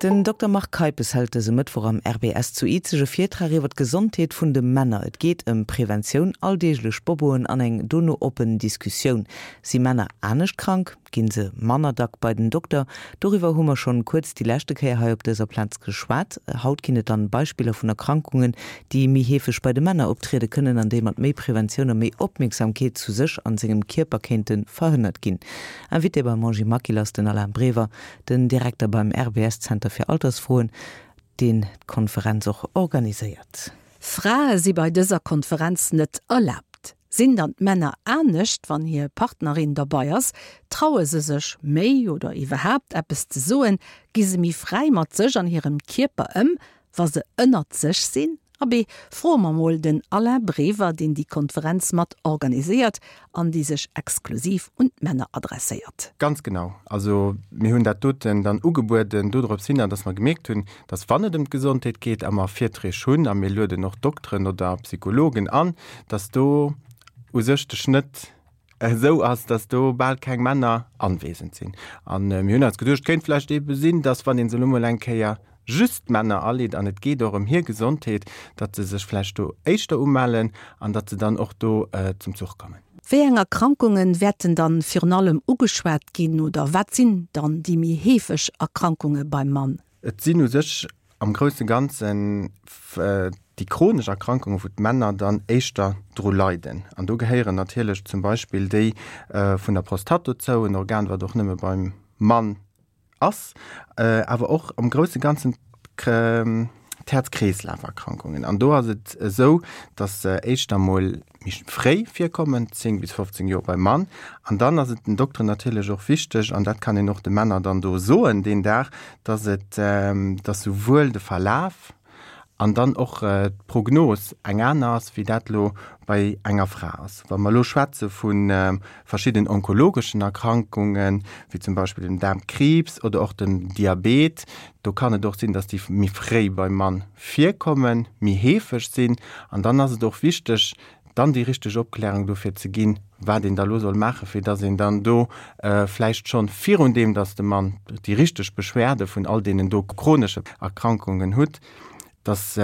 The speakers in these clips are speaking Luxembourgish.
Den Dokter Marc Keipes hält dëse Mëttwoch am RBS zu Izeg e Virtrag iwwer d'Gesondheet vun de Männer. Et geet ëm Preventioun, alldeeglech Boboen an eng dono oppen Diskussioun. Si Männer anescht krank? Ginn se manner dack bei den Dokter? Doriwwer hu mer schonn kuerz déi leschte Kéier hei op dëser Plaz geschwat. Haut ginn et dann Beispiller vun Erkrankungen, déi méi heefeg bei de Männer optriede kënnen an déi mat méi Preventioun a méi Opmierksamkeet zu sech an sengem Kierper kéinte verhënnert ginn. Invité beim Angie Maquil ass den Alain Brever, den Direkter beim RBS-Zenter fir Altersfroen, deen d'Konferenz och organiséiert. Frae si bei dëser Konferenz net erlaabt. Sinn dann d'Männer anescht, wann hir Partnerin derbei ass? Traue se sech méi oder iwwerhaapt eppes ze soen? Gi se méi fräi mat sech an hirem Kierper ëm, wa se ënnert sech sinn? Abee, froe mer mol den Alain Brever, deen déi Konferenz mat organiséiert an déi sech exklusiv un d'Männer adresséiert. Ganz genau. Also mir hunn dat doten dann ugebueden dodrops hinner, dass mer gemierkt hunn, dass wann et ëm d'Gesondheet geet a mer Virträg hunn a mir lueden och Dokteren oder Psychologen an, dass do u sech de Schnëtt esou ass, dass do bal keng Männer anwesend sinn. An mir hunn eis geduecht, et kéint vläicht eebe sinn, dass wann ee se elo mol eng Kéier just d'Männer aleet an et geet och ëm hir Gesondheet, datt se sech vläicht do éischter umellen an datt se dann och do zum Zuch kommen. Wéi eng Erkrankunge wäerten dann virun allem ugeschwat ginn oder wat sinn dann déi méi heefeg Erkrankunge beim Mann? Et sinn u sech am grousse Ganzen déi chronesch Erkrankungen, wou d'Männer dann éischter dru leiden. An do gehéieren natierlech zum Beispill déi vun der Prostatt dozou, en Organ, wat och nëmme beim Mann ass, awer och am grousse Ganzen d'Häerz-Kreeslaf-Erkrankungen. An do ass et esou, dass se éischter mol méi fréi virkommen, 10 bis 15 Joer beim Mann. An dann ass et den Dokteren natierlech och wichteg, an dat kann een och de Männer dann do soen deen Dag, dass et, dass souwuel de Verlaf an dann och d'Prognos eng aner ass, wéi dat elo bei enger Fra ass. Wa mer elo schwätze vu verschidden onkologeschen Erkrankungen, wéi zum Beispill dem Daarmkriibs oder och dem Diabet, do kann et och sinn, dass déi méi fréi beim Mann virkommen, méi heefeg sinn. An dann ass et och wichteg, dann déi richteg Opklärung dofir ze ginn, wat een da lo soll maachen, fir dass een dann do vläicht schonn virun deem, dass de Mann déi richteg Beschwerde vun all deenen do chronesche Erkrankungen hutt, dass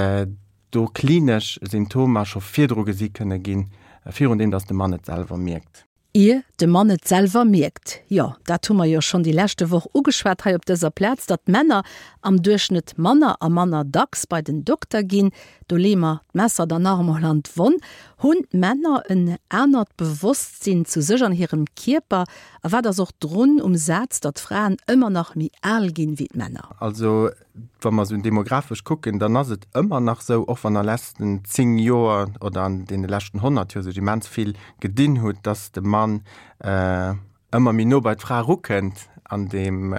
do klinesch Symptomer scho virdru gesi kënne ginn, virun deem, dass de Mann et selwer mierkt. Ier de Mann et selwer mierkt. Jo, dat hu mer jo schonn déi leschte Woch ugeschwat hei op dëser Plaz, datt d'Männer am Duerchschnëtt manner a manner dacks bei den Dokter ginn. Do leeë mer d'Messer dann nach emol an d'Wonn. Hunn d'Männer en anert Bewosstsinn zu sech an hirem Kierper? A wat ass och drun um Saz, datt d'Fraen ëmmer nach méi al ginn wéi d'Männer? Also Wa mer esou demografesch kucken, dann ass et ëmmer nach esou, och wann a letzten 10 Joer oder an deene leschten 100 Joer sech immens vill gedinn hutt, dass de Mann ëmmer méi no bei d'Fra erukënnt an deem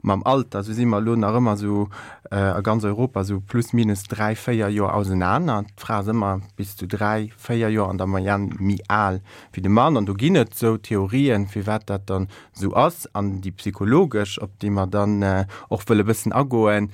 mam Alter. Esou si mer elo nach ëmmer esou a ganz Europa esou plus minus 3, 4 Joer ausenaner. D'Fra ass ëmmer bis zu 3, 4 Joer an der Moyenne méi al wéi de Mann. An do ginn et esou Theorien, firwat dat dann esou ass, an déi psychologesch, op déi mer dann och wëlle bëssen agoen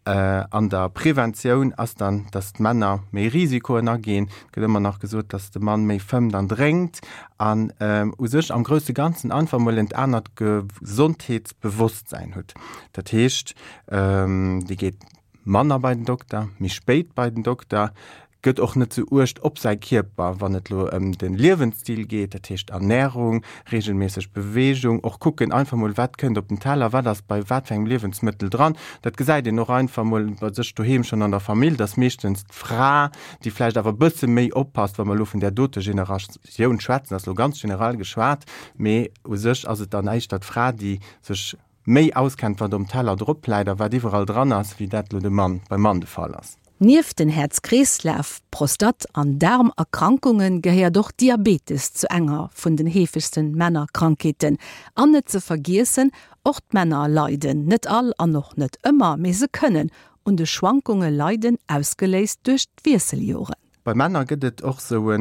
an der Preventioun, ass dann, dass d'Männer méi Risikoen aginn. Et gëtt ëmmer nach gesot, dass de Mann méi fëmmt an drénkt an u sech am grousse Ganzen einfach emol en anert Gesondheetsbewosstsäin hutt. Dat heescht, dee geet manner bei den Dokter, méi spéit bei den Dokter, gëtt och net sou uecht op säi Kierper, wann et lo ëm de Liewensstil geet, dat heescht Ernärung, reegelméisseg Beweegung, och kucken einfach mol wat kënnt op den Teller, wat ass bei wat fir engem Liewensmëttel dran. Dat gesäit een och einfach mol bei sech doheem schonn an der Famill, dass meeschtens d'Fra, déi vläicht awer e bësse méi oppasst, wa mer elo vun där dote Generatioun schwätzen, ass lo ganz generell geschwat, mee u sech ass et dann éischter d'Fra, déi sech méi auskennt, wat um Teller drop läit a wat iwwerall dran ass, wéi dat lo de Mann, beim Mann de Fall ass. Nieft den Häerz-Kreeslaf-, Prostat an Daarmerkrankunge gehéiert och Diabetes zu enger vun den heefegsten Männerkrankheeten. An net ze vergiessen, och d'Männer leiden, net all an och net ëmmer, mee se kënnen un de Schwankunge leiden, ausgeléist duerch d'Wiesseljoren. Bei Männer gëtt et och sou e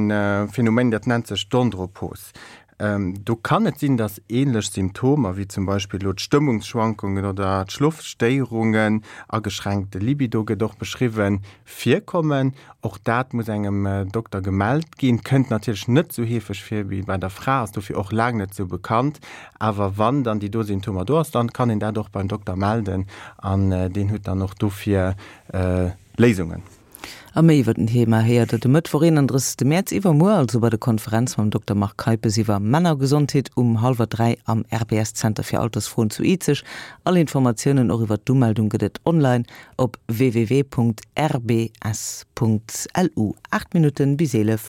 Phänomen, dat nennt sech d'Andropos. Do kann et sinn, dass änlech Symptomer, wéi zum Beispill elo d'Stëmmungsschwankungen oder d'Schlofstéierungen, ageschränkte Libido gëtt och beschriwwen, virkommen. Och dat muss engem Dokter gemellt ginn. Kënnt natierlech net esou heefeg vir wéi bei der Fra, ass dofir och laang net esou bekannt. Awer wann dann déi do Symptomer do ass, dann kann een dat och beim Dokter melden an deen huet dann och dofir Léisungen. A méi iwwer den Thema héiert der de Mëttwoch 31 Mäerz, iwwermuer also, bei der Konferenz mam Dokter Marc Keipes iwwer Männergesondheet um hallwer 3 am RBS Zenter fir Altersfroen zu Izeg. All Informatiounen och iwwer d'Umeldung gëtt et online op www.rbs.lu. 8 Minutten bis 11.